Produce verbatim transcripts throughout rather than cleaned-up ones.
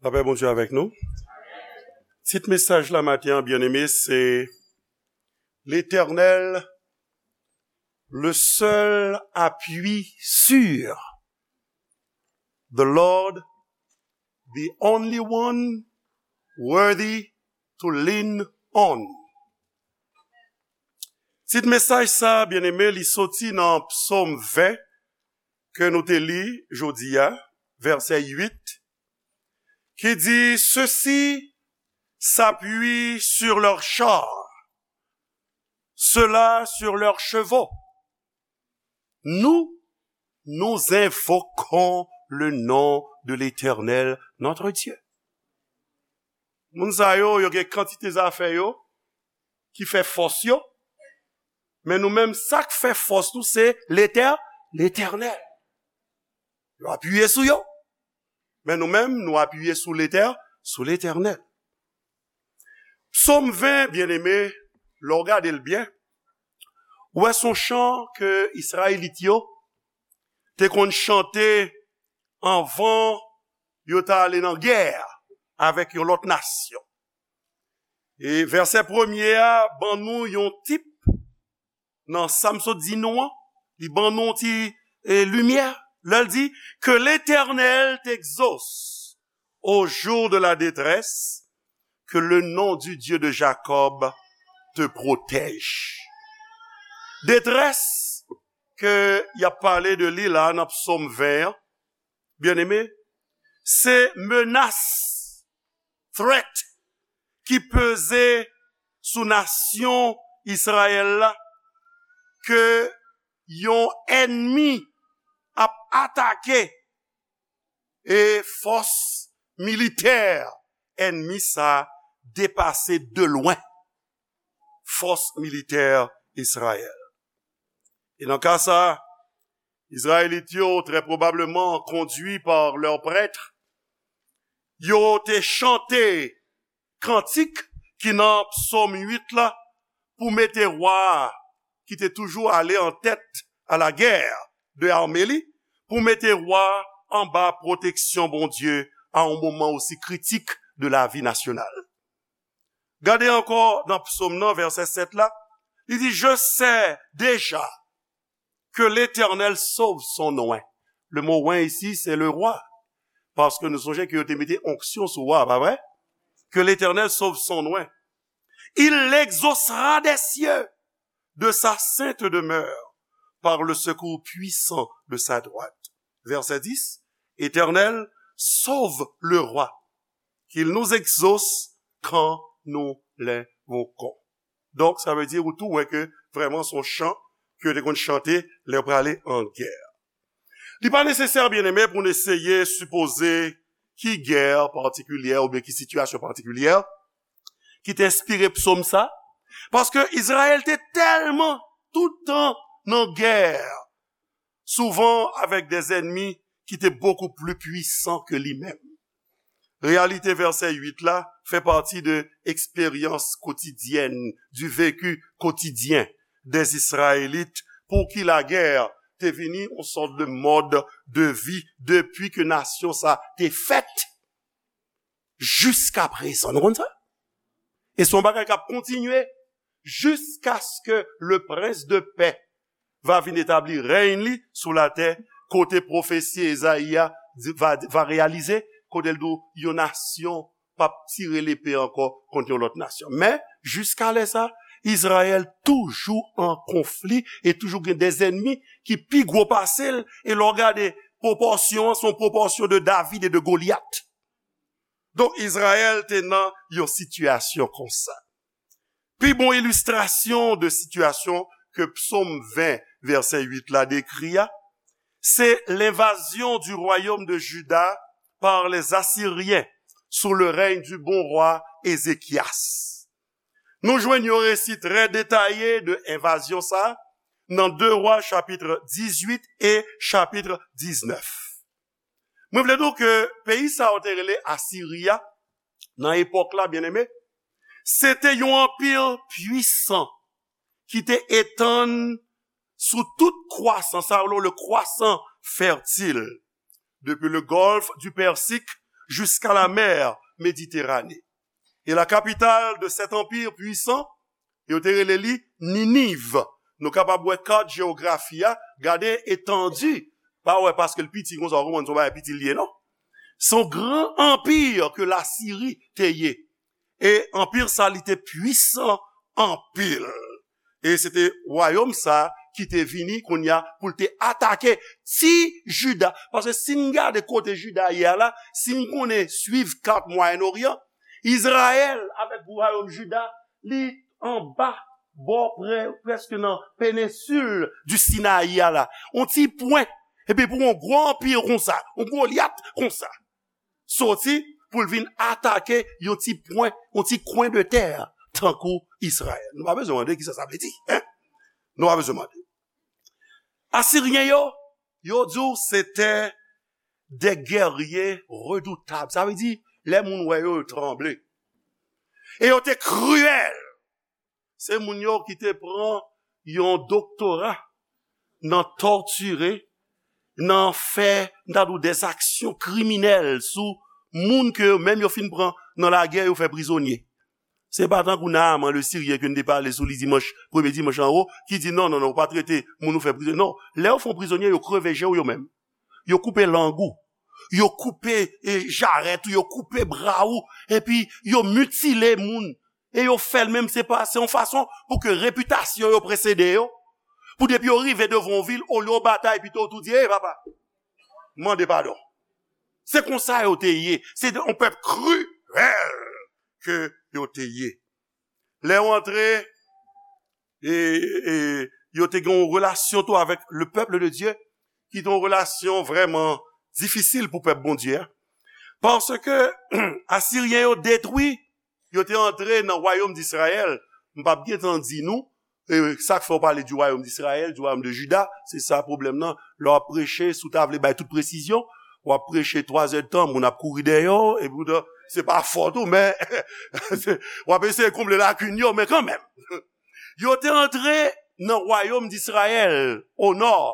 Lapè Bondye avèk nou. Tit mesaj la maten an, byeneme, se Letènèl, le seul appui sûr. The Lord, the only one worthy to lean on. Tit mesaj sa, byeneme, li soti nan Psaume vingt ke nou te li jodi a, vèsè uit, ki di, ceux-ci s'appuient sur leurs chars, ceux-là sur leurs chevaux. Nous, nous invoquons le nom de l'Éternel, notre Dieu. Moun sa yo, yo gen kantite zafè yo ki fè fòs yo, men nou menm, sa k fè fòs nou, se Letè-, Letènèl. Yo apiye sou yo. Men nou menm, nou apiye sou Letè-, sou Letènèl. Psaume vingt, byeneme, lè w gade l byen, ou wè se yon chan ke Izrayelit yo te konn chante anvan yo ta ale nan gè avèk yon lòt nasyon. E vèsè premye a ban nou yon tip nan sa m sot di nou an, li ban nou yon ti, e, limyè. Lè l di, que l'Éternel t'exauce au jour de la détresse, que le nom du Dieu de Jacob te protège. Detrès ke y ap pale de li la nan Psaume vingt an, byeneme, se menas, threat, ki peze sou nasyon Izrayèl la, ke yon ènmi ap atake, e fòs militè ènmi sa depase de lwen fòs militè Izrayèl. E nan ka sa, Izrayelit yo, trè pwobableman kondui pa lè prèt, yo te chante kantik ki nan Psòm uit la pou mete wa a, ki te toujou ale an tèt a la guerre de armée li, pou mete wa a anba pwoteksyon Bondye a yon moman osi kritik de lavi nasyonal. Gade ankò nan Psòm nan, vèsè sèt la, li di, je sais déjà que l'Éternel sauve son oint. Le mot oint ici, c'est le roi. Paske nou sonje ke yo te mete onksyon sou wa, pa vre? Que l'Éternel sauve son oint. Il l'exaucera des cieux, de sa sainte demeure, par le secours puissant de sa droite. Verset dix, Éternel, sauve le roi, qu'il nous exauce quand nous l'invoquons. Donk, sa vle di, ou tou wè ke vrèman se yon chan ke yo te konn chante lè yo prale an gè. Li pa nesesè, byeneme, pou n eseye sipoze ki gè patikilyè oubyen ki sitiyasyon patikilyè ki te enspire psòm sa, paske Izrayèl te tèlman tout tan nan gè, souvan avèk de zènmi ki te bokou pli pwisan ke li menm. Reyalite vèsè uit la fè pati de eksperyans kotidyèn, du vécu quotidien des Israélites, pou ki lagè te vini yon sòt de mòd de vi depi ke nasyon sa te fèt jiska prezan. Nou konn sa? E se yon bagay k ap kontinye jiskaske le prince de paix va vin etabli rèy li sou latè, kote pwofesi Ezayi a di- va, va reyalize, kote l di w, yon nasyon p ap tire lepe ankò kont yon lòt nasyon. Men, jiska lè sa, Izrayèl toujou an konfli e toujou gen de zènmi ki pi gwo pase l, e lè w gade pwopòsyon an, se yon pwopòsyon de David e de Golyat. Donk, Izrayèl te nan yon sitiyasyon konsa. Pi bon ilistrasyon de sitiyasyon ke Psaume vingt, vèsè uit la dekri a, c'est l'invasion du royaume de Juda par les Assyriens sous le règne du bon roi Ézéchias. Nou jwenn yon resi trè detaye de envazyon sa a nan de Wa chapit dizuit e chapit diznèf. Mwen vle di w ke peyi sa yo te rele Asiri a, nan epòk la, byeneme, se te yon anpi pwisan ki te etann sou tout kwasan, sa yo rele le croissant fertile, depuis le golfe du Persique jusqu'à la mer Méditerranée. Et la capitale de cet empire puissant, yo te rele li Niniv. Nou kapab wè kat jewografi a, gade etandi. Pa wè paske l piti konsa, w konprann se yon bagay piti l ye, non. Se yon gran anpi ke Lasiri te ye. E anpi sa, li te pwisan anpil. E se te wayòm sa ki te vini kounye a pou l te atake ti Jida. Paske si n gade kote Jida ye a la, si n konnen swiv kat Mwayen Oryan, Izrayèl avèk wayòm Jida, li anba, bò prè, prèske nan penensil di Sinayi a la. On ti pwen. Epi pou yon gwo anpi konsa, yon Golyat konsa, soti pou l vin atake yon ti pwen, yon ti kwen de tè tankou Izrayèl. Nou pa bezwen mande kisa sa vle di, en? Nou pa bezwen mande. Asiryen yo, yo di w se te de guerriers redoutables. Sa vle di, lè moun wè yo, yo tranble. E yo te kriyèl. Se moun yo ki te pran yon doktora nan tòtire, nan fè, m ta di w, dèzaksyon kriminèl sou moun ke yo menm yo fin pran nan lagè, yo fè prizonye. Se pa tankou Naaman le Siryen ke n te pale sou li dimanch, premye dimanch anwo, ki di, "Non, non, non, ou pa trete moun ou fè prizonye." Non, lè yo fè w prizonye, yo kreve je w yo menm. Yo koupe lang ou. Yo koupe, e, jarèt ou, yo koupe bra ou, epi yo mitile moun. E yo fè l menm, se pa, se yon fason pou ke repitasyon yo presede yo. Pou depi yo rive devan yon vil, olye yo batay, pito yo tou di, "Ey, papa, mande padon." Se konsa yo te ye. Se yon pèp kriyèl ke yo te ye. Lè yo antre, e, e yo te gen yon relasyon tou avèk le peuple de Dieu, ki te yon relasyon vrèman difisil pou pèp Bondye a. Paske Asiryen yo detwi, yo te antre nan wayòm Disrayèl. M p ap gentan di nou, e, sa k fè w pale di wayòm Disrayèl, di wayòm de Jida, se sa pwoblèm nan. Lè w ap preche, si w ta vle bay tout presizyon, w ap preche twa zè de tan, moun ap kouri dèyè w, epi w ta, se pa fòt ou, men w ap eseye konble lakin yo, men kanmenm. Yo te antre nan wayòm Disrayèl, o nò,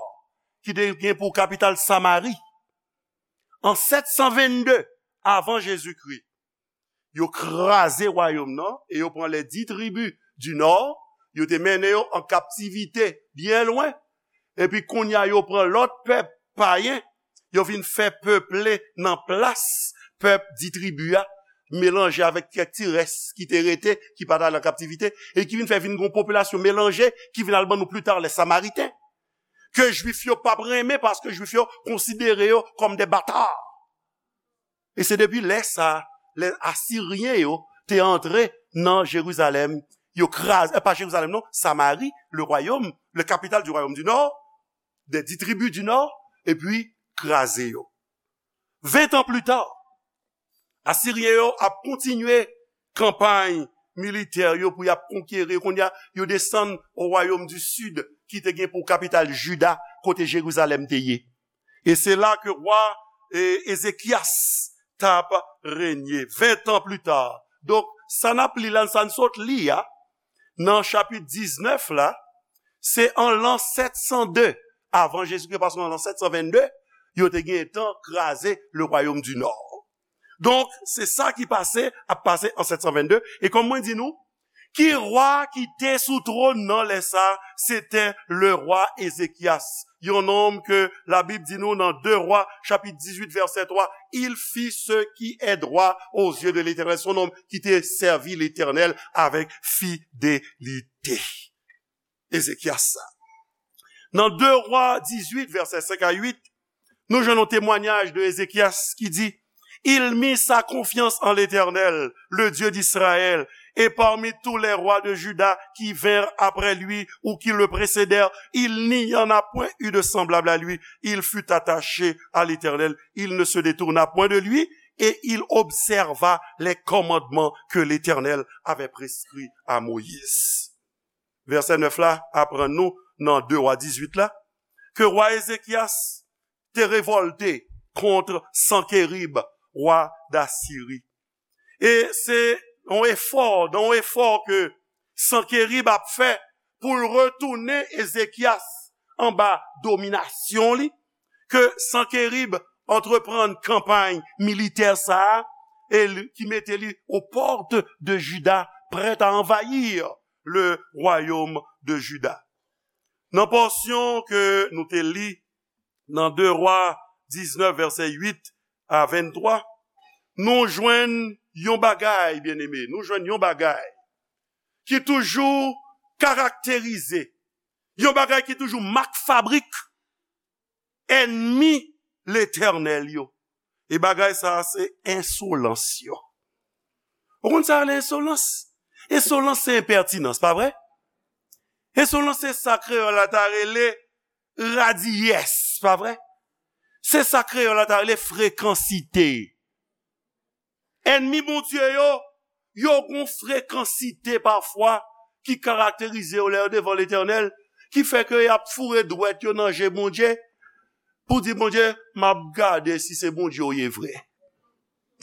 ki te gen pou kapital Samari. An sèt san vennde avan Jezikri, yo kraze wayòm nan e yo pran les dix tribus du nord, yo te mennen yo an kaptivite byen lwen. Epi kounye a, yo pran lòt pèp payen, yo vin fè peple nan plas pèp dis tribi a, melanje avèk kèk ti rès ki te rete, ki pa t al an kaptivite, e ki vin fè vin gon popilasyon melanje, ki vin al ban nou pli ta, les Samaritains, ke Jwif yo p ap renmen, paske Jwif yo konsidere yo kòm de bata. E se depi lè sa, lè Asiryen yo te antre nan Jerizalèm, yo kraze, eh, pa Jerizalèm non, Samari, le royaume, le capital du royaume du nord, des dix tribus du nord, epi kraze yo. Ven tan pli ta, Asiryen yo ap kontinye kanpay militè yo pou y ap konkeri. Kounye a, yo desann o wayòm di sid, ki te gen pou kapital Jida, kote Jerizalèm te ye. E se la ke wa, e, Ezekyas t ap renye, ven tan pli ta. Donk, sa n ap li la, sa n sot li a, nan chapit diznèf la, se an lan sèt san de avan Jezikri, paske an lan sèt san vennde, yo te gen tan kraze le royaume du nord. Donk, se sa ki pase, ap pase an sèt san vennde. E kòm mwen di nou, ki wa ki te sou twòn nan lè sa? Se te le rwa Ezekyas. Yon nonm ke Labib di nou nan de Rwa, chapit dizuit, vèsè twa, il fit ce qui est droit aux yeux de l'Éternel. Se yon nonm ki te sèvi Letènèl avèk fidelite. Ezekyas sa. Nan de Rwa dizuit, vèsè senk a uit, nou jwenn yon temwanyaj de Ezekyas ki di, il mit sa confiance en l'Éternel, le Dieu d'Israël, et parmi tous les rois de Juda qui vinrent après lui ou qui le précédèrent, il n'y en a point eu de semblable à lui. Il fut attaché à l'Éternel, il ne se détourna point de lui, et il observa les commandements que l'Éternel avait prescrits à Moïse. Vèsè nèf la aprann nou nan de Rwa dizuit la, ke wa Ezekyas te revòlte kont Sankerib, wa Dasiri. E se yon efò, nan yon efò ke Sankerib ap fè pou l retounen Ezekyas anba dominasyon li, ke Sankerib antreprann kanpay militè sa a, e li, ki mete li aux portes de Juda, prêt à envahir le royaume de Juda. Nan pòsyon ke nou te li nan de Wa diznèf, vèsè uit a venntwa, nou jwenn yon bagay, byeneme, nou jwenn yon bagay ki toujou karakterize, yon bagay ki toujou mak fabrik ènmi Letènèl yo. E bagay sa a se ensolans yo. Ou konn sa rele ensolans? Ensolans se enpètinans, pa vre? Ensolans se sa kreyòl la ta rele radiyès, pa vre? Se sa kreyòl la ta rele frekansite. Ènmi Bondye yo, yo gon frekansite pafwa ki karakterize yo lè yo devan Letènèl, ki fè ke y ap foure dwèt yo nan je Bondye pou di, Bondye, m ap gade si se Bondye w ye vre.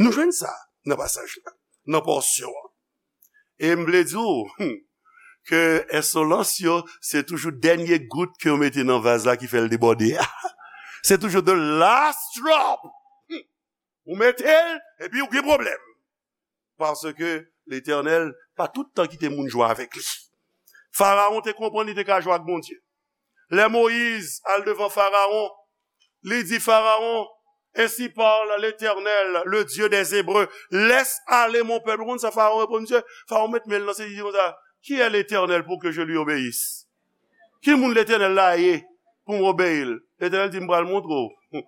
Nou jwenn sa nan pasaj la, nan pòsyon an. E m vle di w, hmm, ke ensolans yo, se toujou dènye gout ke yo mete nan vaz la ki fè l debòde a. Se toujou the last drop. Hmm. Ou mete l, epi ou gen pwoblèm. Paske Letènèl pa tout tan kite moun jwe avèk li. Farawon te konprann li te ka jwe ak Bondye. Lè Moyiz al devan Farawon, li di, Farawon, ainsi parle l'Éternel, le Dieu des Hébreux, laisse aller mon peuple. Ou konn sa Farawon reponn misye? Farawon met men l nan sezi, li di konsa, qui est l'Éternel pour que je lui obéisse? Ki moun Letènèl la ye pou m obeyi l? Letènèl di, m pral montre w.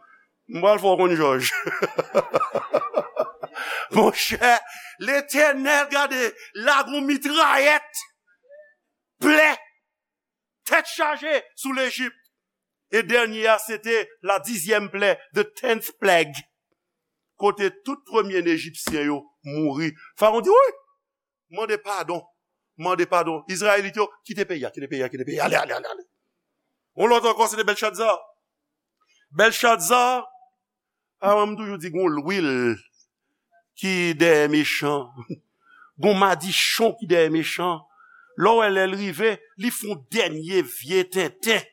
M pral fè w konn jòj. Monchè, Letènèl, gade, lage yon mitrayèt, plè, tèt chaje sou Lejip. E dènye a, se te la dizyèm plè, the tenth plague. Kote tout premye Ejipsyen yo mouri. Farawon di, wi, mande padon. Mande padon. Izrayelit yo, kite peyi a, kite peyi a, kite peyi a. Ale, ale, ale, ale. Yon lòt ankò, se te Bèlchadza. Bèlchadza, a, mwen, m toujou di, gon lwil ki dèyè mechan. Gon madichon ki dèyè mechan. Lè w wè lè l rive, li fè yon dènye vye tenten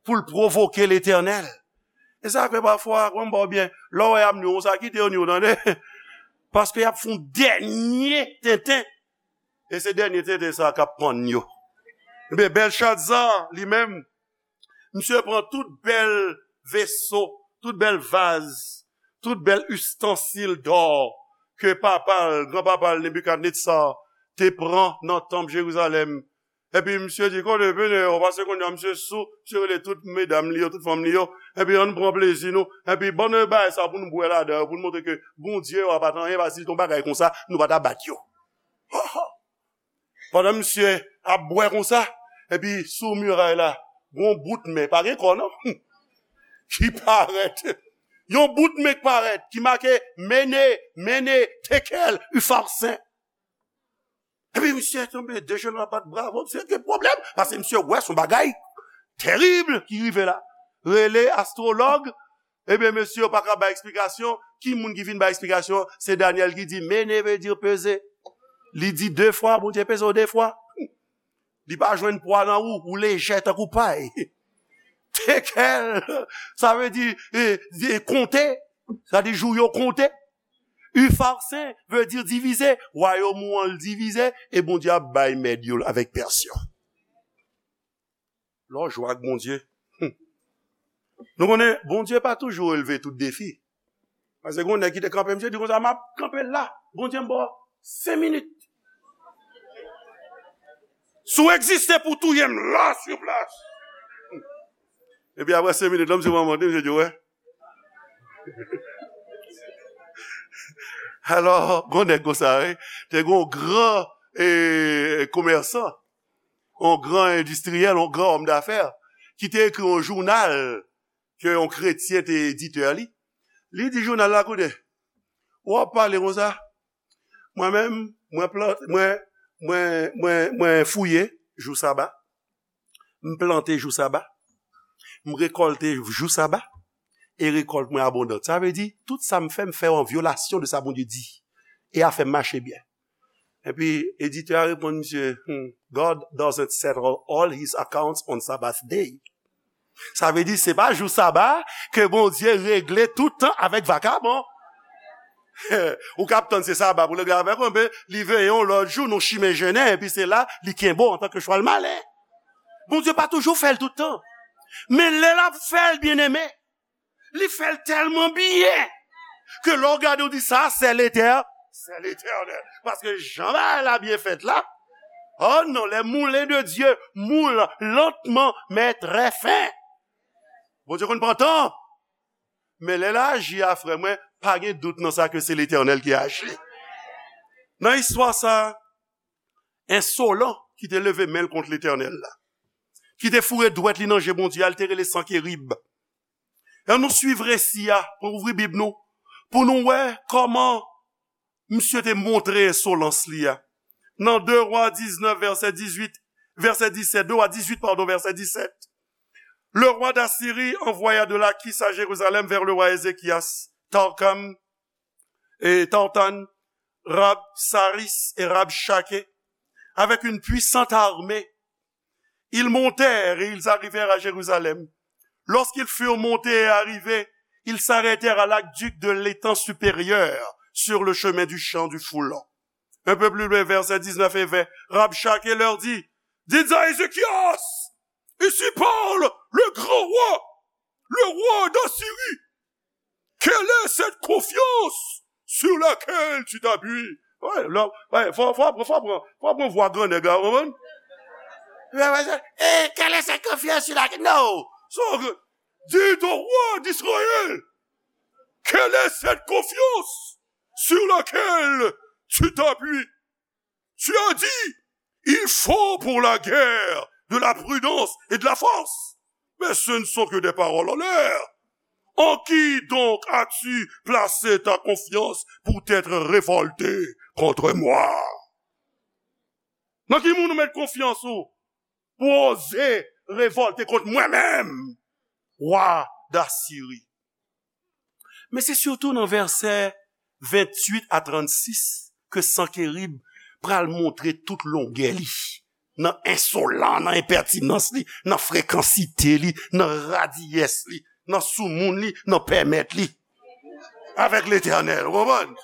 pou l pwovoke Letènèl. E sa k fè pafwa, kòm m ba w byen, lè w wè y ap ni w konsa, kite yo ni w, tande. Paske y ap fè yon dènye tenten. E se dènye tenten sa k ap pann yo. Ebyen, Bèlchadza, li menm, misye pran tout bèl veso, tout bèl vaz, tout bèl istansil dò ke papa l, granpapa l, Nebikadnetza, te pran nan tanp Jerizalèm. Epi misye di, kote, vini, yo, paske kounye a misye sou, misye rele tout medam li yo, tout fanm li yo, epi ann pran plezi nou, epi ban nou bagay sa pou nou bwè ladan yo, pou nou montre ke Bondye yo a pa t anyen, paske si l te yon bagay konsa, nou pa ta bat yo. Pandan misye ap bwè konsa, epi sou miray la, gon bout men, pa gen kò non, ki parèt. Yon bout men k parèt, ki make, mene, mene, tekel, ufarsin. Epi misye tonbe dejenou ap bat bravo, misye gen pwoblèm, paske misye wè se yon bagay terib ki rive la. Rele astwològ, ebyen, mesye yo pa ka bay eksplikasyon. Ki moun ki vin bay eksplikasyon? Se Danyèl ki di, mene veut dire peser. Li di de fwa, Bondye peze w de fwa. Li pa jwenn pwa nan ou, ou lejè tankou pay. Tekel, sa vle di, e, e, konte, sa di jou yo konte. Ufarsin veut dire divize, wayòm ou an l divize, e Bondye ap bay mèd yo avèk pèsyon. Lè w jwe ak Bondye, hmm. Nou konnen, Bondye pa toujou releve tout defi. Paske gon nèg ki te kanpe, misye di konsa, m ap kanpe la, Bondye m ba w senk minit. Si w egziste pou touye m la, sur place. Epi apre senk minit, la, misye pran mande, misye di, wè. Alò, gon nèg konsa, wi. Te gon gran, e, komèsan, yon gran endistriyèl, yon gran òm dafè, ki te ekri yon jounal ke yon kretyen te editè li. Li di jounal la, koute, w ap pale konsa, mwen menm, mwen plant, mwen, mwen, mwen, mwen fouye jou saba, m plante jou saba, m rekòlte jou saba, e rekòlt mwen abondan. Sa vle di, tout sa m fè, m fè an vyolasyon de sa Bondye di. E afè m mache byen. Epi, editè a reponn misye, hmm, God doesn't settle all his accounts on Sabbath day. Sa vle di, se pa jou saba ke Bondye regle tout tan avèk vakabon. Ou k ap tann se saba pou l regle avèk ou, men li veye yon lòt jou, nou chimen jennen, epi se la, li kenbe w antanke chwal malen. Bondye pa toujou fè l tout tan. Men lè l ap fè l, byeneme, li fè l tèlman byen ke lè w gade, w di, sa, se Letè-, se Letènèl. Paske jan bagay la byen fèt la, oh non, les moulins de Dieu moulent lentement, mais très fin. Bondye konn pran tan. Men lè l aji a, frè mwen, pa gen dout nan sa ke se Letènèl ki aji. Nan istwa sa, ensolan ki te leve men l kont Letènèl la, ki te foure dwèt li nan je Bondye a, li te rele Sankerib. Ann nou swiv resi a, pran ouvri Bib nou, pou nou wè kòman misye te montre ensolans li a. Nan de Wa diznèf, vèsè dizuit, vèsè disèt, de Wa dizuit, padon, vèsè disèt. Le roi d'Assyrie envoya de Lachish à Jérusalem vers le roi Ézéchias, Tarkam, et Tartan, Rabsaris et Rabshakeh, avec une puissante armée. Ils montèrent et ils arrivèrent à Jérusalem. Lorsqu'ils furent montés et arrivés, ils s'arrêtèrent à l'aqueduc de l'étang supérieur, sur le chemin du champ du foulon. Un peu plus loin, versets dix-neuf et vingt, Rabshakeh leur dit, dites à Ézéchias, ainsi parle le grand roi, le roi d'Assyrie. Quelle est cette confiance sur laquelle tu t'appuies? Wè, lè, wè, fò, fò, fò, fò pran, fò pran vwa gran nèg la, ou konprann? Wè, wè, se, eh, quelle est cette confiance sur laquelle, non. So, dites au roi d'Israël, quelle est cette confiance sur laquelle tu t'appuies? Tu as dit, il faut pour la guerre de la prudence et de la force. Mais ce ne sont que des paroles en l'air. En qui donc as-tu placé ta confiance pour t'être révolté contre moi? Nan ki moun ou met konfyans ou pou oze revòlte kont mwen menm, wa Dasiri? Men se sitou nan vèsè venntuit a trannsis ke Sankerib pral montre tout longè li, nan ensolan, nan enpètinans li, nan frekansite li, nan radiyès li, nan soumoun li, nan pèmèt li avèk Letènèl. Ou konprann?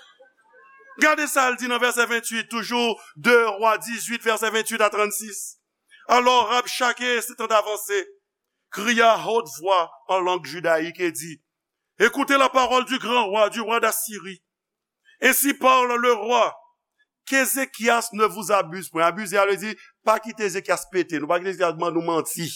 Gade sa l di nan vèsè venntuit, toujou de Wa dizuit, vèsè venntuit a trannsis. Alors Rabshakeh, s'étant avancé, cria à haute voix en langue judaïque et dit, écoutez la parole du grand roi, du roi d'Assyrie. Ainsi parle le roi, qu'Ézéchias ne vous abuse point. Abize a vle di, pa kite Ezekyas pete nou, pa kite Ezekyas ban nou manti.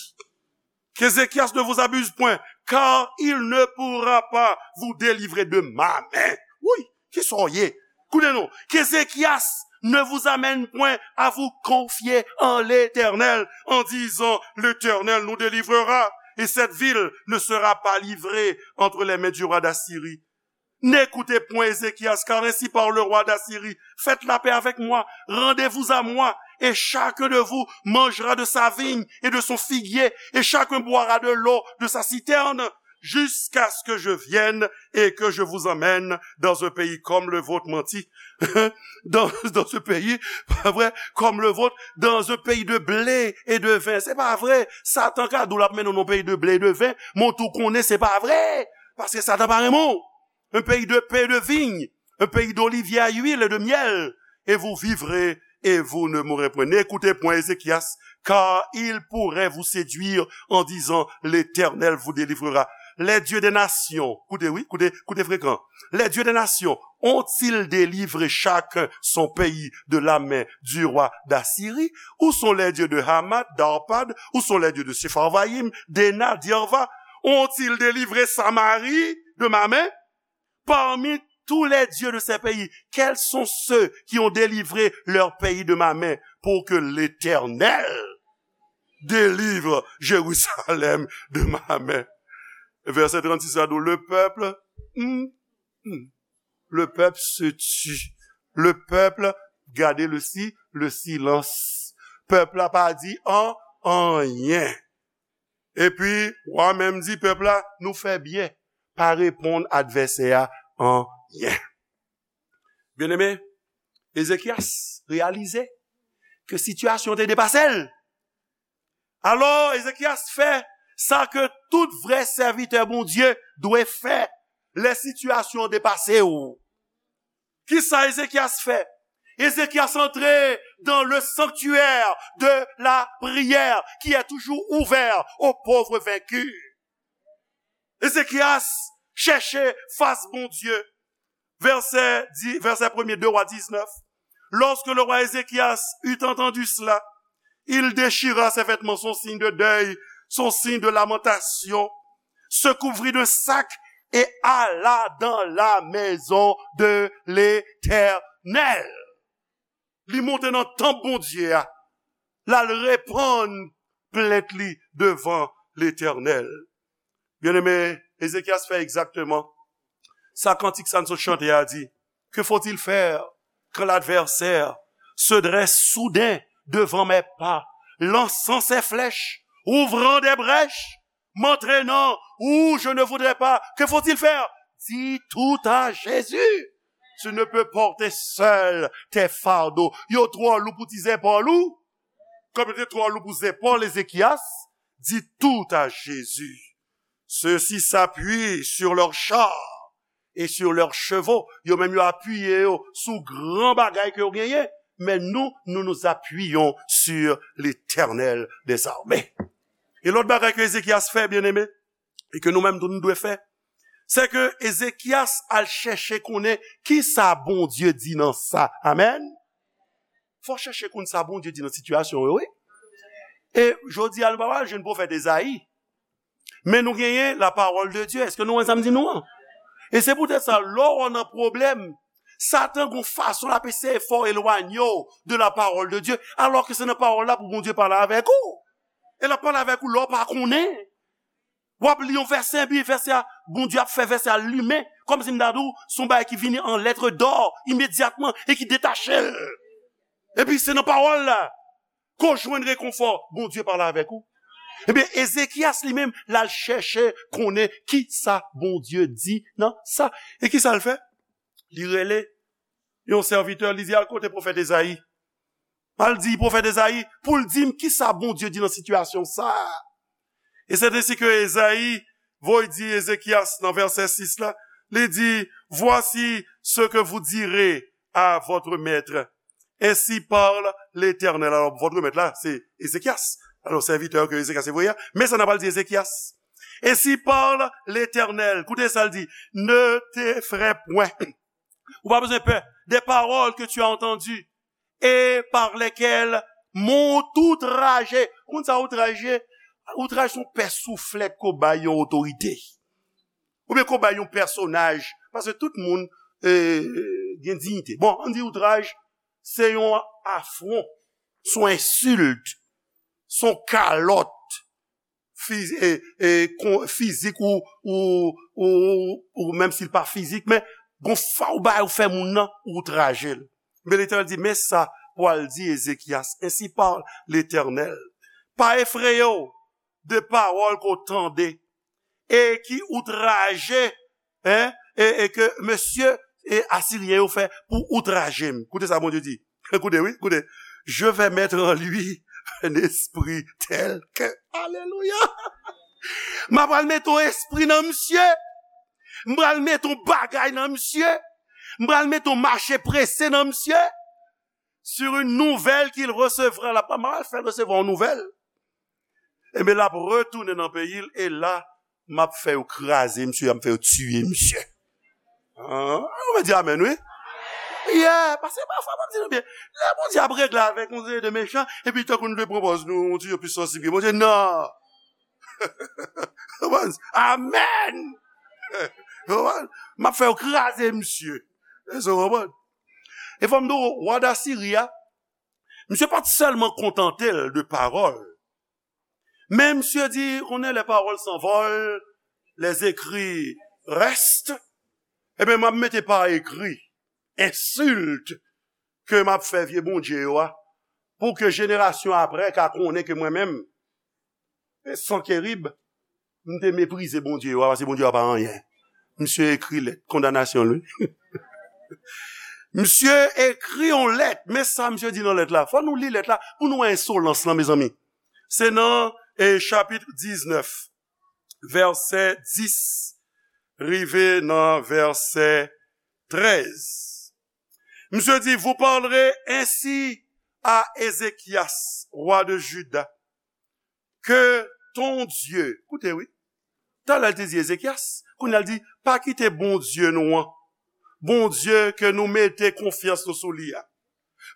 Qu'Ézéchias ne vous abuse point, car il ne pourra pas vous délivrer de ma main. Wi, kisa w ye? Koute non, qu'Ézéchias ne vous amène point à vous confier en l'Éternel, en disant, l'Éternel nous délivrera, et cette ville ne sera pas livrée entre les mains du roi d'Assyrie. N'écoutez point Ézéchias, car ainsi parle le roi d'Assyrie, faites la paix avec moi, rendez-vous à moi, et chacun de vous mangera de sa vigne et de son figuier, et chacun boira de l'eau de sa citerne, jusqu'à ce que je vienne et que je vous emmène dans un pays comme le vôtre. Manti. Dans, dans ce pays, pa vre, comme le vôtre, dans un pays de blé et de vin. Se pa vre. Satan ka di w l ap mennen w nan yon peyi de blé et de vin, men w tou konnen se pa vre. Paske Satan pa renmen w. Un pays de paix et de vigne, un pays d'oliviers à huile et de miel, et vous vivrez et vous ne mourrez point. N'écoutez point Ézéchias, car il pourrait vous séduire en disant, l'Éternel vous délivrera. Les dieux des nations, koute wi, koute, koute frekan. Les dieux des nations ont-ils délivré chacun son pays de la main du roi d'Assyrie? Où sont les dieux de Hamath, d'Arpad? Où sont les dieux de Sepharvaïm, d'Héna, d'Arva? Ont-ils délivré Samarie de ma main? Parmi tous les dieux de ces pays, quels sont ceux qui ont délivré leur pays de ma main pour que l'Éternel délivre Jérusalem de ma main? Vèsè trannsis la di, le peuple, hmm, hmm, le peuple se tut. Le peuple, gade le si, le silence. Pèp la pa di an, anyen. Epi, wa menm di pèp la, nou fè byen, pa reponn advèsè a anyen. Byeneme, Ezekyas reyalize ke sitiyasyon te depase l. Alò, Ezekyas fè Sa ke tout vrè sèvitè Bondye dwe fè lè sitiyasyon an depase w. Kisa Ezekyas fè? Ezekyas antre dans le sanctuaire de la prière qui est toujours ouvert aux pauvres vaincus. Ezekyas chèche fas Bondye. Verset, di- verset premier, deux Rois dix-neuf. Lorsque le roi Ézéchias eut entendu cela, il déchira ses vêtements, son signe de deuil, son signe de lamentation, se couvrit d'un sac et alla dans la maison de l'Éternel. Li monte nan tanp Bondye a, l al repann plent li devan Letènèl. Byeneme, Ezekyas fè egzakteman sa kantik sa n sot chante a di. Que faut-il faire quand l'adversaire se dresse soudain devant mes pas, lançant ses flèches, ouvrant des brèches, m'entraînant où je ne voudrais pas? Que faut-il faire? Dis tout à Jésus. Tu ne peux porter seul tes fardeaux. Yo twò lou pou ti zepòl ou. Kòm yo te twò lou pou zepòl Ezekyas, dis tout à Jésus. Ceux-ci s'appuient sur leurs chars et sur leurs chevaux. Yo menm yo apiye yo sou gran bagay ke yo genyen. Men nou, nous nous appuyons sur l'Éternel des armées. E lòt bagay ke Ezekyas fè, byeneme, e ke nou menm tou nou dwe fè, se ke Ezekyas al chèche konnen kisa Bondye di nan sa. Amèn. Fò chèche konn sa Bondye di nan sitiyasyon yo, wi. E jodi a, nou pa pral jwenn pwofèt Ezayi. Men nou genyen la parole de Dieu. Èske nou wè sa m di nou an? E se poutèt sa, lè w nan pwoblèm, Satan gon fason l ap eseye fè w elwanye w de la parole de Dieu, alò ke se nan pawòl la pou Bondye pale avèk ou. E l ap pale avèk ou lè w pa konnen. W ap li yon vèsè, epi vèsè a, Bondye ap fè vèsè a limen, kòmsi m ta di w, se yon bagay ki vini an lèt dò imedyatman e ki detache l. Epi se nan pawòl la ke w jwenn rekonfò, Bondye pale avèk ou. Ebyen, Ezekyas li menm, l al chèche konnen kisa Bondye di nan sa. E kisa l fè? Li rele yon sèvitè, li di, "Al kote pwofèt Ezayi. Al di pwofèt Ezayi pou l di m kisa Bondye di nan sitiyasyon sa a." E c'est ainsi que Ezayi voye di Ezekyas nan vèsè sis la, li di, "Voici ce que vous direz à votre maître. Ainsi parle l'Éternel." Alò, votre maître la, se Ezekyas. Alò, sèvitè ke Ezekyas te voye a. Men sa n ap al di Ezekyas. "Ainsi parle l'Éternel." Koute sa l di, "Ne t'effraie point." Ou pa bezwen pè. "Des paroles que tu as entendues et par lesquelles m'ont outragé." Ou konn sa outraje? Outraj se yon pè souflèt ke w bay yon otorite. Oubyen ke w bay yon pèsonaj. Paske tout moun, eh, gen diyite. Bon, ann di outraj, se yon afwon, se yon ensilt, se yon kalòt fiz-, e, e, kon-, fizik ou, ou, ou, ou menm si l pa fizik, men gon fa w bay ou fè moun nan, ou outraje l. Men Letènèl di, men sa pou al di Ezekyas, "Ainsi parle l'Éternel. Pa efreye w de pawòl ke w tande e ki outraje, en, e, e ke mesye, e Asiryen yo fè pou outraje m." Koute sa Bondye di. Koute, wi, koute. "Je vais mettre en lui un esprit tel que." Alelouya! M ap pral mete yon espri nan misye. M pral mete yon bagay nan misye. M pral mete yon mache prese nan misye. Sur une nouvelle qu'il recevra. L ap, m ap fè l resevwa yon nouvèl. Ebyen, l ap retounen nan peyi l, e la, m ap fè yo kraze misye, m ap fè yo tiye misye. An, ou mèt di amèn, wi. Yeah, paske pafwa, m ap di nou byen, lè Bondye ap regle avèk yon seri de mechan, epi tankou nou te pran pòz nou, yon ti jan plis sansib ke Bondye, non. Amèn! M ap fè yo kraze misye. Èske w konprann? E fò m di w, wa Dasiri a, misye pa t sèlman kontante l de pawòl, men misye di, konnen les paroles s'envolent, les écrits restent, ebyen, m ap mete pa ekri ensilt ke m ap fè vye bondye yo a, pou ke jenerasyon apre ka konnen ke mwen menm, Sankerib, m te meprize Bondye yo a, paske Bondye yo a pa anyen. Misye ekri lèt kondanasyon l, wi. Misye ekri yon lèt, men sa misye di nan lèt la. Fò nou li lèt la pou nou wè ensolans lan, mezanmi. Se nan, eh, chapit diznèf. vèsè dis, rive nan vèsè trèz. Misye di, vous parlerez ainsi à Ézéchias, roi de Juda, que ton Dieu, koute wi, talè l te di Ezekyas, kounye a l di, pa kite Bondye nou an, Bondye ke nou mete konfyans nou sou li a,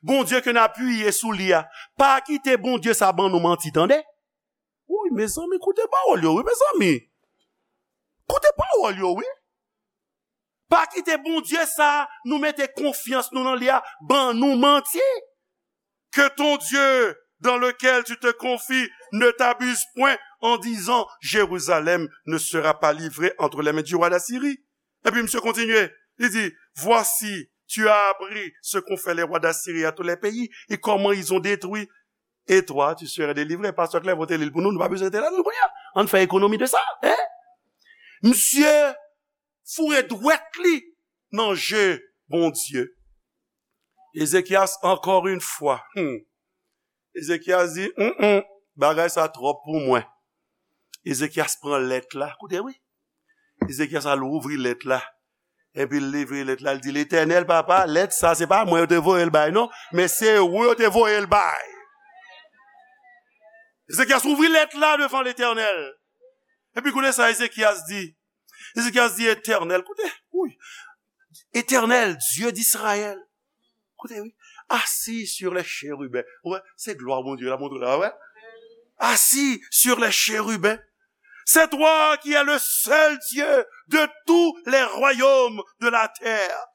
Bondye ke n apiye sou li a, pa kite Bondye sa ban nou manti, tande. Wi, mezanmi, koute pawòl yo, wi, mezanmi. Koute pawòl yo, wi. Pa kite Bondye sa nou mete konfyans nou nan li a ban nou manti. Que ton Dieu dans lequel tu te confies ne t'abuse point en disant, Jérusalem ne sera pas livrée entre les mains du roi d'Assyrie. Epi misye kontinye, li di, voici, tu as appris ce qu'ont fait les rois d'Assyrie à tous les pays et comment ils ont détruit. Et toi, tu seras délivré. Pastè Clerveau te li l pou nou, nou pa bezwen te la, nou kounye a. Ann fè ekonomi de sa, hein? Misye foure dwèt li nan je Bondye. Ezekyas, encore une fois. Hmm. Ezekyas di, mm, mm, bagay sa twòp pou mwen. Ezekyas pran lèt la. Koute, wi. Ezekyas al ouvri lèt la. Epi l livre lèt la, l di, Letènèl, papa, lèt sa, se pa mwen yo te voye l bay, non, men se ou yo te voye l bay. Ezekyas ouvri lèt la devan Letènèl. Epi koute sa Ezekyas di. Ezekyas di, Etènèl, koute, wi. Etènèl, Dye d'Izrayèl. Koute, wi. Assis sur les chérubins. Wè, se glwa Bondye la montre la, wè. Assis sur les chérubins. C'est toi qui es le seul Dieu de tous les royaumes de la terre.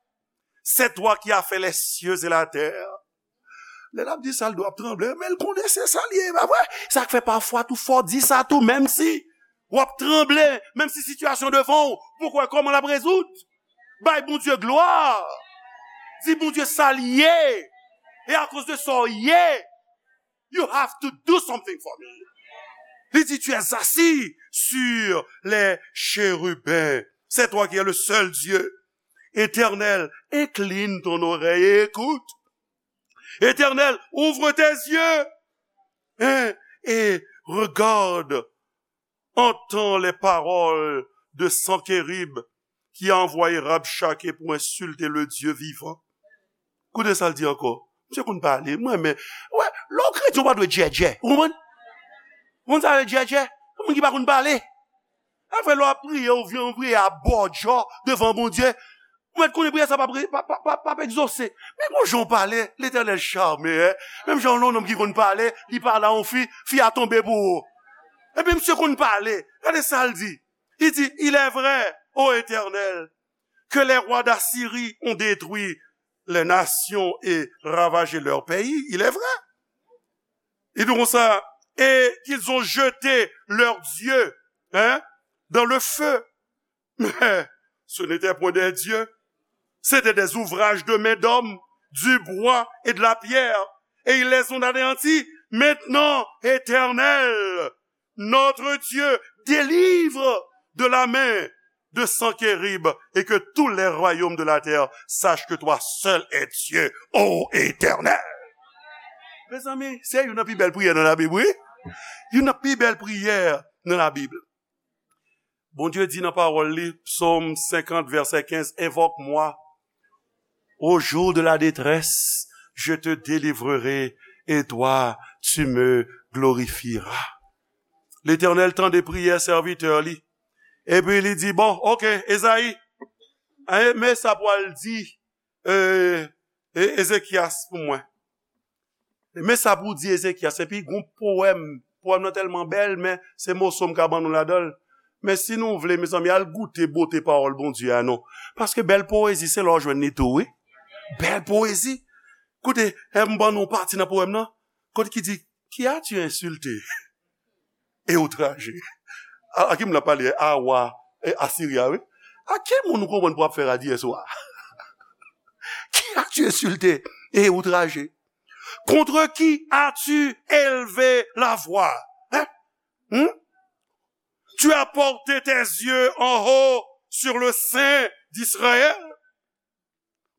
C'est toi qui as fait les cieux et la terre. Lè l ap di sa, l dwe ap tranble, men l konnen se sa l ye, pa vre? Sa k fè pafwa tou fò w di sa tou, menm si w ap tranble, menm si sitiyasyon devan w, pou w wè kòman l ap rezoud. Bay Bondye glwa. Di Bondye sa l ye. E akoz de sa w ye, you have to do something for me. Li di, tu es assis sur les chérubins. C'est toi qui es le seul Dieu. Éternel, incline ton oreille et écoute. Éternel, ouvre tes yeux, hein, et regarde, entends les paroles de Sanchérib qui a envoyé Rabchaké pour insulter le Dieu vivant. Koute sa l di ankò. Misye konn pale, mwen men. Wè, lè w kretyen, w pa dwe djèdjè. Ou konprann? Ou konn sa vle djèdjè? Moun ki pa konn pale. Afè lè w ap priye, ou vin priye a bòdjò devan Bondye. Ou mèt konnen priyè sa p ap re-, p ap, p ap, p ap, p ap egzose. Men gon jan w pale, Letènèl chame, hein. Menm jan yon nonm ki konn pale, li pale a yon fi, fi a tonbe pou ou. Epi misye konn pale. Gade sa l di. Li di, il est vrai, ô Éternel, que les rois d'Assyrie ont détruit les nations et ravagé leur pays. Il est vrai. Il dit comme ça, et qu'ils ont jeté leurs dieux, hein, dans le feu. Mais ce n'étaient point des dieux. C'était des ouvrages de main d'homme, du bois et de la pierre. Et ils les ont anéantis. Maintenant, Éternel, notre Dieu, délivre de la main de Sanchérib et que tous les royaumes de la terre sachent que toi seul es Dieu, ô Éternel. Mezanmi, se youn nan pi bèl priyè nan Labib, wi. Youn nan pi bèl priyè nan Labib. Bondye di nan pawòl li, Psaume cinquante, verset quinze, invoque-moi au jour de la détresse, je te délivrerai et toi, tu me glorifieras. Letènèl tande priyè sèvitè li. Epi li di, bon, oke, Ezayi, men sa pou w al di, e, e, Ezekyas pou mwen. Men sa pou w di Ezekyas. Epi gon powèm. Powèm nan tèlman bèl, men se moso m ka ban nou ladan l. Men si nou vle, mezanmi, al goute bote pawòl Bondye a non. Paske bèl powezi, se la w jwenn li tou, wi. Bèl powezi. Koute, e m ban nou pati nan powèm nan. Kote ki di, qui as-tu insulté et outragé? A, a ki moun l ap pale? A wa, e, Asiri a, wi. A ki moun ou konprann pou ap fè rad yè swa? Qui as-tu insulté et outragé? Contre qui as-tu élevé la voix? Hein? Hmm? Tu as porté tes yeux en haut sur le Saint d'Israël.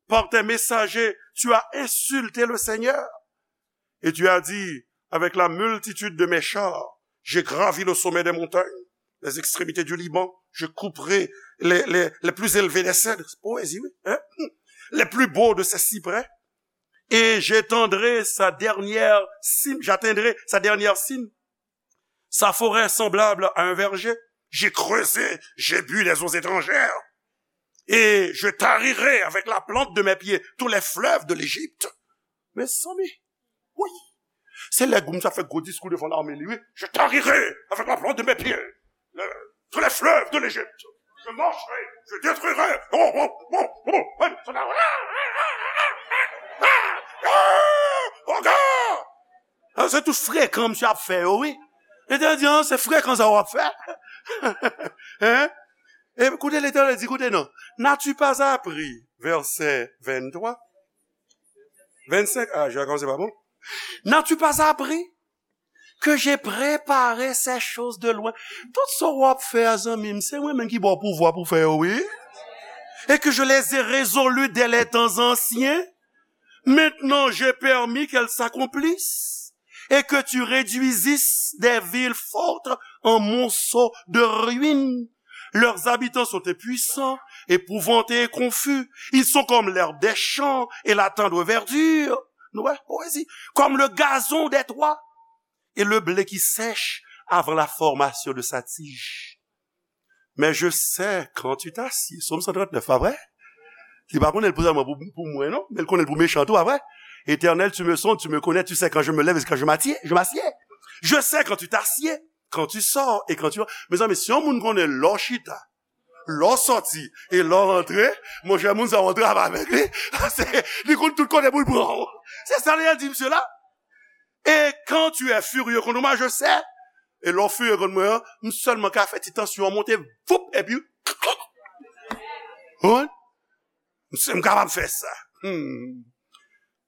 Par tes messagers, tu as insulté le Seigneur. Et tu as dit, avec la multitude de mes chars, j'ai gravi le sommet des montagnes. les extrémités du Liban, je couperai les, les, les plus élevés des cèdres. Poésie, oui, hein? Les plus beaux de ces cyprès. Et j'étendrai sa dernière cime, j'atteindrai sa dernière cime. Sa forêt semblable à un verger. J'ai creusé, j'ai bu des eaux étrangères. Et je tarirai avec la plante de mes pieds tous les fleuves de l'Égypte. Mezanmi, wi. Se lè Goum sa fè gwo diskou devan lame li, wi. Je tarirai avec la plante de mes pieds le, tous les fleuves de l'Égypte. Je marcherai, je détruirai. Oh, oh, oh, oh, oh, oh, oh. Ah, se tout frekan misye ap fè yo, wi. Letènèl di, ah, se frekan sa w ap fè. Hein? E koute Letènèl di, koute non. N'as-tu pas appris, verset vingt-trois, vingt-cinq, ah, je vais commencer par bon. N'as-tu pas appris que j'ai préparé ces choses de loin? Tout sa w ap fè a, zanmi m, se mwen menm ki ba w pouvwa pou fè yo, wi. Et que je les ai résolues dès les temps anciens. Maintenant, j'ai permis qu'elles s'accomplissent et que tu réduisisses des villes fortes en monceaux de ruines. Leurs habitants sont impuissants, épouvantés et confus. Ils sont comme l'herbe des champs et la tendre verdure. Nou wè, poésie. Comme le gazon des toits et le blé qui sèche avant la formation de sa tige. Mais je sais quand tu t'assieds. Sòm san trant nèf, pa vre? Li pa konnen l pou sèlman pou, pou mwen, non, men l konnen l pou mechan tou, pa vre? Éternel, tu me sondes, tu me connais, tu sais quand je me lève et quand je m'assieds, je m'assieds. Je sais quand tu t'assieds, quand tu sors et quand tu rentres. Mezanmi, si yon moun konnen lè w chita, lè w sòti e lè w rantre, monchè, moun sa w antre avèk li. Paske li konn tout kote pou l pran w. Se sa li di misye la. Et quand tu es furieux contre moi, je sais. E lè w firye kont mwen an, m sèlman ka fè ti tansyon an monte, voup, epi, wi. M, m kapab fè sa. Hmm.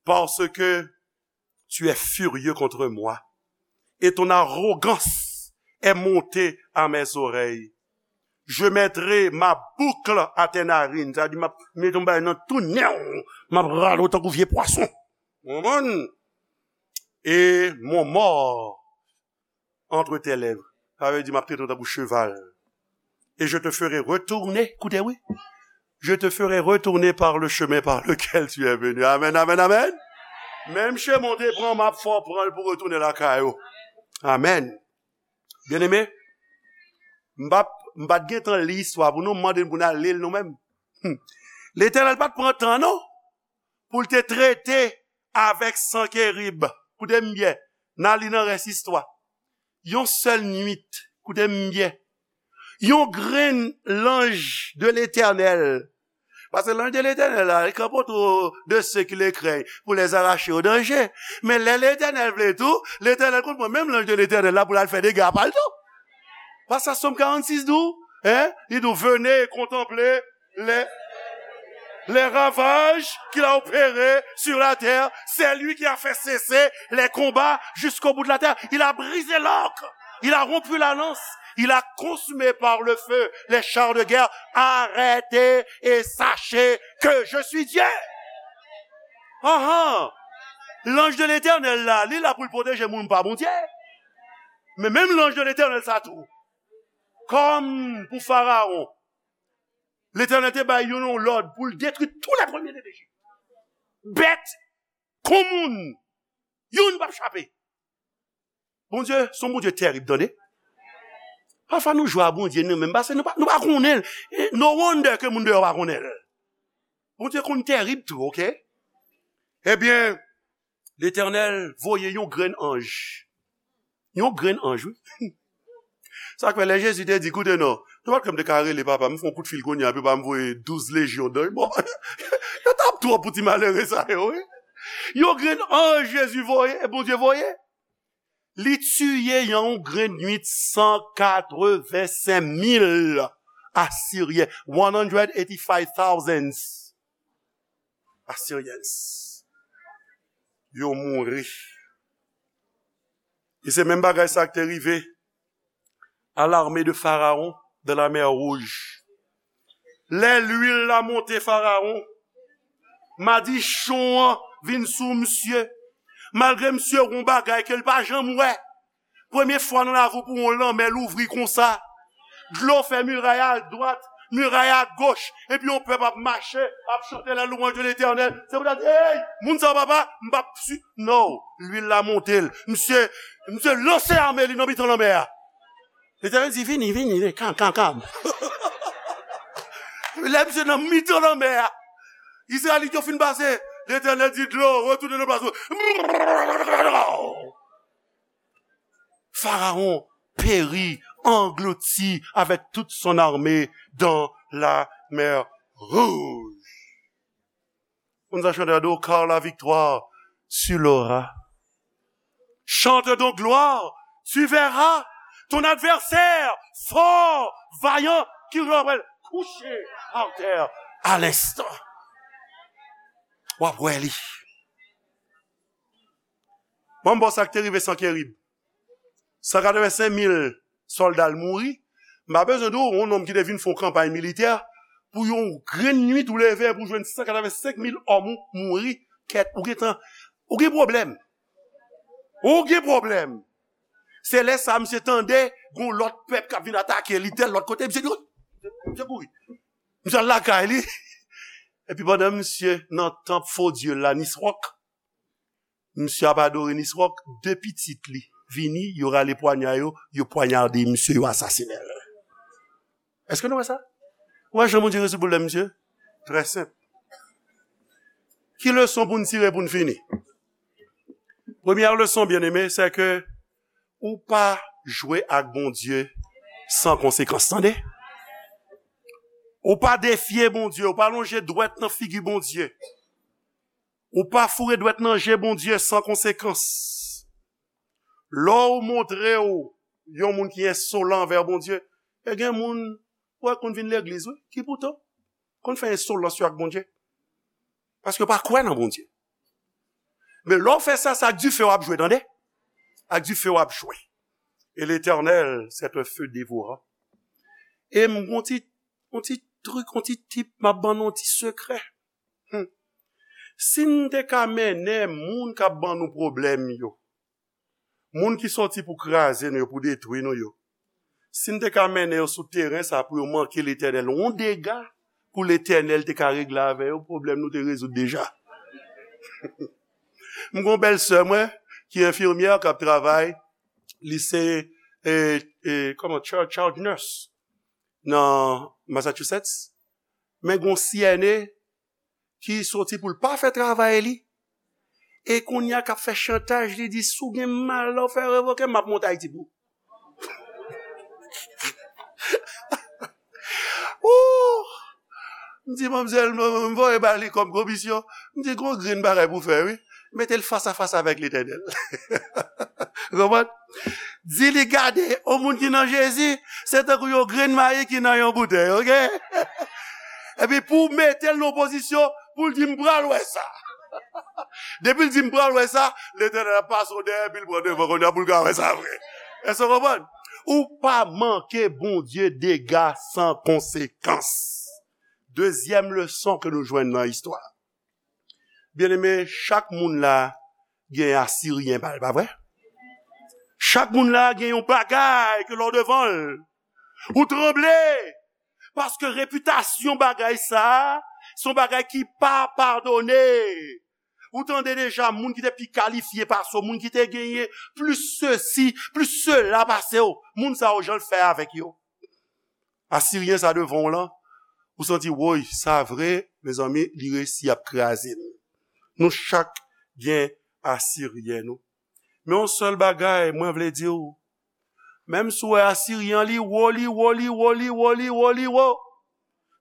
Parce que tu es furieux contre moi, et ton arrogance est montée à mes oreilles. Je mettrai ma boucle à tes narines. Sa di, m ap mete yon bagay nan tou nen w. M ap rale w tankou vye pwason. Ou konprann? Et mon mors entre tes lèvres. Sa vle di, m ap trete w tankou cheval. Et je te ferai retourner, koute, wi. Je te ferai retourner par le chemin par lequel tu es venu. Amen, amen, amen. Menm chemen w te pran, m ap fè w pran l pou retounen lakay ou. Amen. Byeneme, m pa, m pa t gen tan li istwa pou nou, m mande n pou n al li l nou menm. Hmm. Letènèl pa t pran tan, non, pou l te trete avèk Sankerib. Koute m byen, n a li nan rès istwa. Yon sèl nwit, koute m byen, yon grenn lanj de Letènèl. Paske lanj de Letènèl la, li kanpe otou de ceux qui le craignent pour les arracher au danger. Men lè Letènèl vle tou, Letènèl konn pran menm lanj de Letènèl la pou l al fè dega pa l tou. Paske Sòm karannsis di w, hein, li di w, venez contempler les, les ravages qu'il a opérés sur la terre. C'est lui qui a fait cesser les combats jusqu'au bout de la terre. Il a brisé l'arc. Il a rompu la lance. Il a consumé par le feu les chars de guerre. Arrêtez et sachez que je suis Dieu. Ah ah. Lanj de Letènèl la, li la pou l pwoteje moun pa Bondye. Men menm lanj de Letènèl sa tou, kòm pou Farawon, Letènèl te bay youn yon lòd pou l detwi tou lè premye de Lejip. Bèt kon moun, youn p ap chape. Bondye, se yon Bondye tèrib, tande. Pafwa nou jwe a Bondye nou menm, paske nou pa, nou pa konnen l. E no wonder ke moun deyò pa konnen l. Bondye konn tèrib tou, oke? Ebyen, Letènèl voye yon grenn anj. Yon grenn anj, wi. Sa k fè lè Jezi te di, koute non, nenpòt lè m te ka rele papa m, fè yon kout fil kounye a, epi papa m voye douz lejyon danj. Bon, yo t ap twòp pou ti malere sa yo, wi. Yon grenn anj Jezi voye, Bondye voye. Li tiye yon grenn nwit san katrevensenk mil Asiryen. One hundred eighty-five thousand Assyrians. Yo mouri. E se menm bagay sa k te rive à l'armée de Pharaon dans la mer Rouge. Lè lwil la monte Farawon, madichon an vin sou misye. Malgre misye wè yon bagay ke l pa janm wè. Premye fwa nan lavi w pou yon lanmè louvri konsa. Dlo fè miray a dwat, miray a goch, epi yon pèp ap mache, ap chante la louanj de Letènèl. Se pou ta di, hey, moun sa yo, papa, m p ap si, no, lwil la monte l. Misye, misye lanse ame li nan mitan lanmè a. Letènèl di, vini, vini, vini, kam, kam, kam. Lè misye nan mitan lanmè a, Izrayelit yo fin pase, Letènèl di, dlo, retounen nan plas ou. Pharaon périt, englouti avec toute son armée dans la mer Rouge. Moun sa chante a di w, car la victoire tu l'auras. Chante donc gloire, tu verras ton adversaire fort, vaillant, qui reprend couché par terre à l'instant. W ap wè li. Bon, bon, sa k te rive Sankerib. San katrevensenk mil sòlda l mouri. M pa bezwen di w, yon nonm ki te vin fè yon kanpay militè, pou yon grenn nwit ou leve pou jwenn san katrevensenk mil òm ou mouri, kèt, ou gentan, ou gen pwoblèm. Ou gen pwoblèm. Se lè sa, misye tande, gon lòt pèp k ap vin atake li, tèl lòt kote, misye di, misye kouri. Misye al lakay li. Epi pandan misye nan tanp fo dye la, Niswòk, misye ap adore Niswòk, de pitit li vini, yo rale pwanya yo, yo pwanyade misye, yo asasinen l. Èske nou wè sa? Ou wè jan Bondye rezoud pwoblèm misye? Trè senp. Ki leson pou n tire pou n fini? Premyè leson, byeneme, se ke ou pa jwe ak Bondye san konsekans, tande? Ou pa defye Bondye, ou pa lonje dwèt nan figi Bondye. Ou pa foure dwèt nan je Bondye san konsekans. Lè w montre w yon moun ki ensolan anvè Bondye, e gen moun, wè, konn vin legliz, wi, ki poutan konn fè ensolans yo ak Bondye. Paske yo pa kwè nan Bondye. Men lè w fè sa, se ak dife w ap jwe, tande? Ak dife w ap jwe. Et l'Éternel, c'est un feu dévorant. E m gon ti, yon ti trik, yon ti tip, m ap ban nou yon ti sekrè. Hmm. Si n te ka mennen moun k ap ban nou pwoblèm yo, moun ki soti pou kraze nou yo, pou detwi nou yo, si n te ka mennen yo sou teren sa pou yo manke Letènèl yon dega, pou Letènèl te ka regle avè yo, pwoblèm nou te rezoud deja. M gon bèl sè mwen, ki enfimyè, k ap travay, li se, e, e, kòman, charge, charge nurse nan Massachusetts. Men gon C N A ki soti pou l pa fè travay li. E kounye a k ap fè chantaj, li di, si w gen malè w fè revoke m, m ap monte Ayiti pou ou. Ooh! M di, manmzèl, m, m voye ba li kòm komisyon. M di, gon grenn bagay pou fè, wi. Mete l fas a fas avèk Letènèl. Konprann? Di li gade, yon moun ki nan Jezi, se tankou yon grenn mayi ki nan yon boutèy, oke? Epi pou w mete l nan pozisyon, pou l di, m pral wè sa. Depi l di, m pral wè sa, Letènèl ap pase w dèyè, epi l pran devan kounye a pou l ka wè sa vre. Èske w konprann? Ou pa manke Bondye dega san konsekans. Dezyèm leson ke nou jwenn nan istwa. Byeneme, chak moun la gen Asiryen pa l, pa vre? Chak moun la gen yon bagay ke lè w devan l, ou tranble. Paske repitasyon bagay sa a, se yon bagay ki pa padone. Ou tande deja moun ki te pi kalifye pase w, moun ki te genyen plis sesi, plis sela pase w. Moun sa yo, jan l fè avèk yo. Asiryen sa devan w lan, ou santi, woy, sa vre, mezanmi, li resi ap kraze n. Nou chak gen Asiryen nou. Men yon sèl bagay, mwen vle di w, menm si w wè Asiryen an, li wo, li wo, li wo, li wo, li wo, li wo.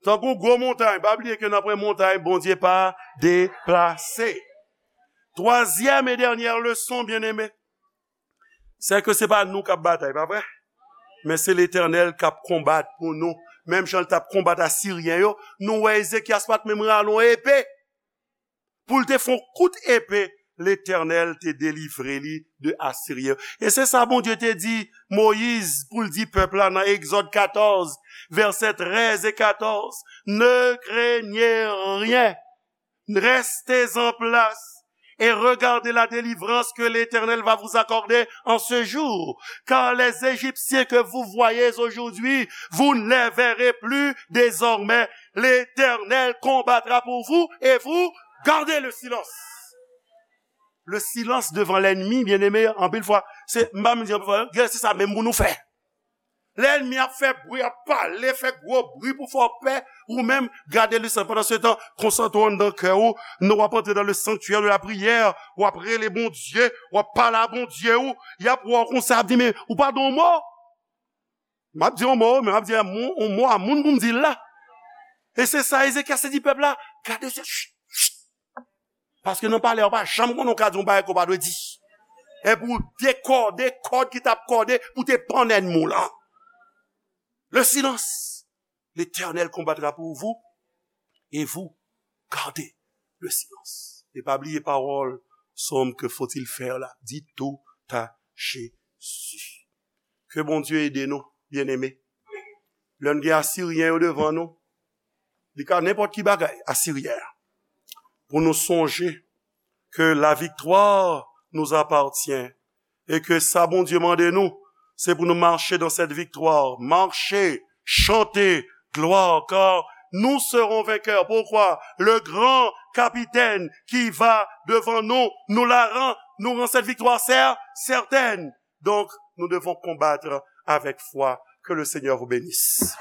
Tankou gwo montay, pa bliye ke nan pwen montay, Bondye pa deplase. Twazyèm e dènyè leson, byeneme, se ke se pa nou k ap batay, pa vre? Men se Letènèl k ap konbat pou nou. Menm jan l t ap konbat Asiryen yo, nou wè Ezekyas pa t menm rale yon epe. Pou l te fè yon kout epe, Letènèl te delivre li de Asiryen. E se sa Bondye te di Moyiz pou l di pèp la nan Egzòd katòz, vèsè trèz e katòz, ne craignez rien. Restez en place et regardez la délivrance que l'Éternel va vous accorder en ce jour. Car les Égyptiens que vous voyez aujourd'hui, vous ne les verrez plus désormais. L'Éternel combattra pour vous et vous gardez le silence. Le silence devant l'ennemi, bien-aimé, anpil fwa, se, m pa menm di anpil fwa, gen se sa menm pou nou fè. Lènmi ap fè bri, ap pale, fè gwo bri pou fè w pè, ou menm, gade le silence. Pandan se tan, konsantre w anndan kè w, nan w ap antre dans le sanctuaire de la prière, w ap rele Bondye, w ap pale a Bondye w, y ap wè w konsa, ap di, men, ou pa di yon mo? M ap di yon mo, men m ap di yon mo, yon mo a moun pou m di l la. E se sa Ezekyas te di pèp la, gade se, ch, ch, paske nan palè, w pa janm konnen w ka di yon bagay ke w pa dwe di. E pou dekòde kòd ki t ap kòde, pou te pann ènmi w lan. Le silence. L'Éternel combattra pour vous et vous gardez le silence. E pa bliye pawòl sòm ke faut-il faire la. Di tout à Jésus. Ke Bondye ede nou, byeneme. Lè n gen Asiryen yo devan nou, li ka nenpòt ki bagay, Asiryen an. Pou nou sonje ke la victoire nous appartient e ke sa Bondye mande nou, se pou nou mache dans cette victoire. Mache, chante, gloire, car nous serons vainqueurs. Pourquoi? Le grand capitaine qui va devant nous, nous la rend, nous rend cette victoire cer-, certaine. Donc, nous devons combattre avec foi. Que le Seigneur vous bénisse.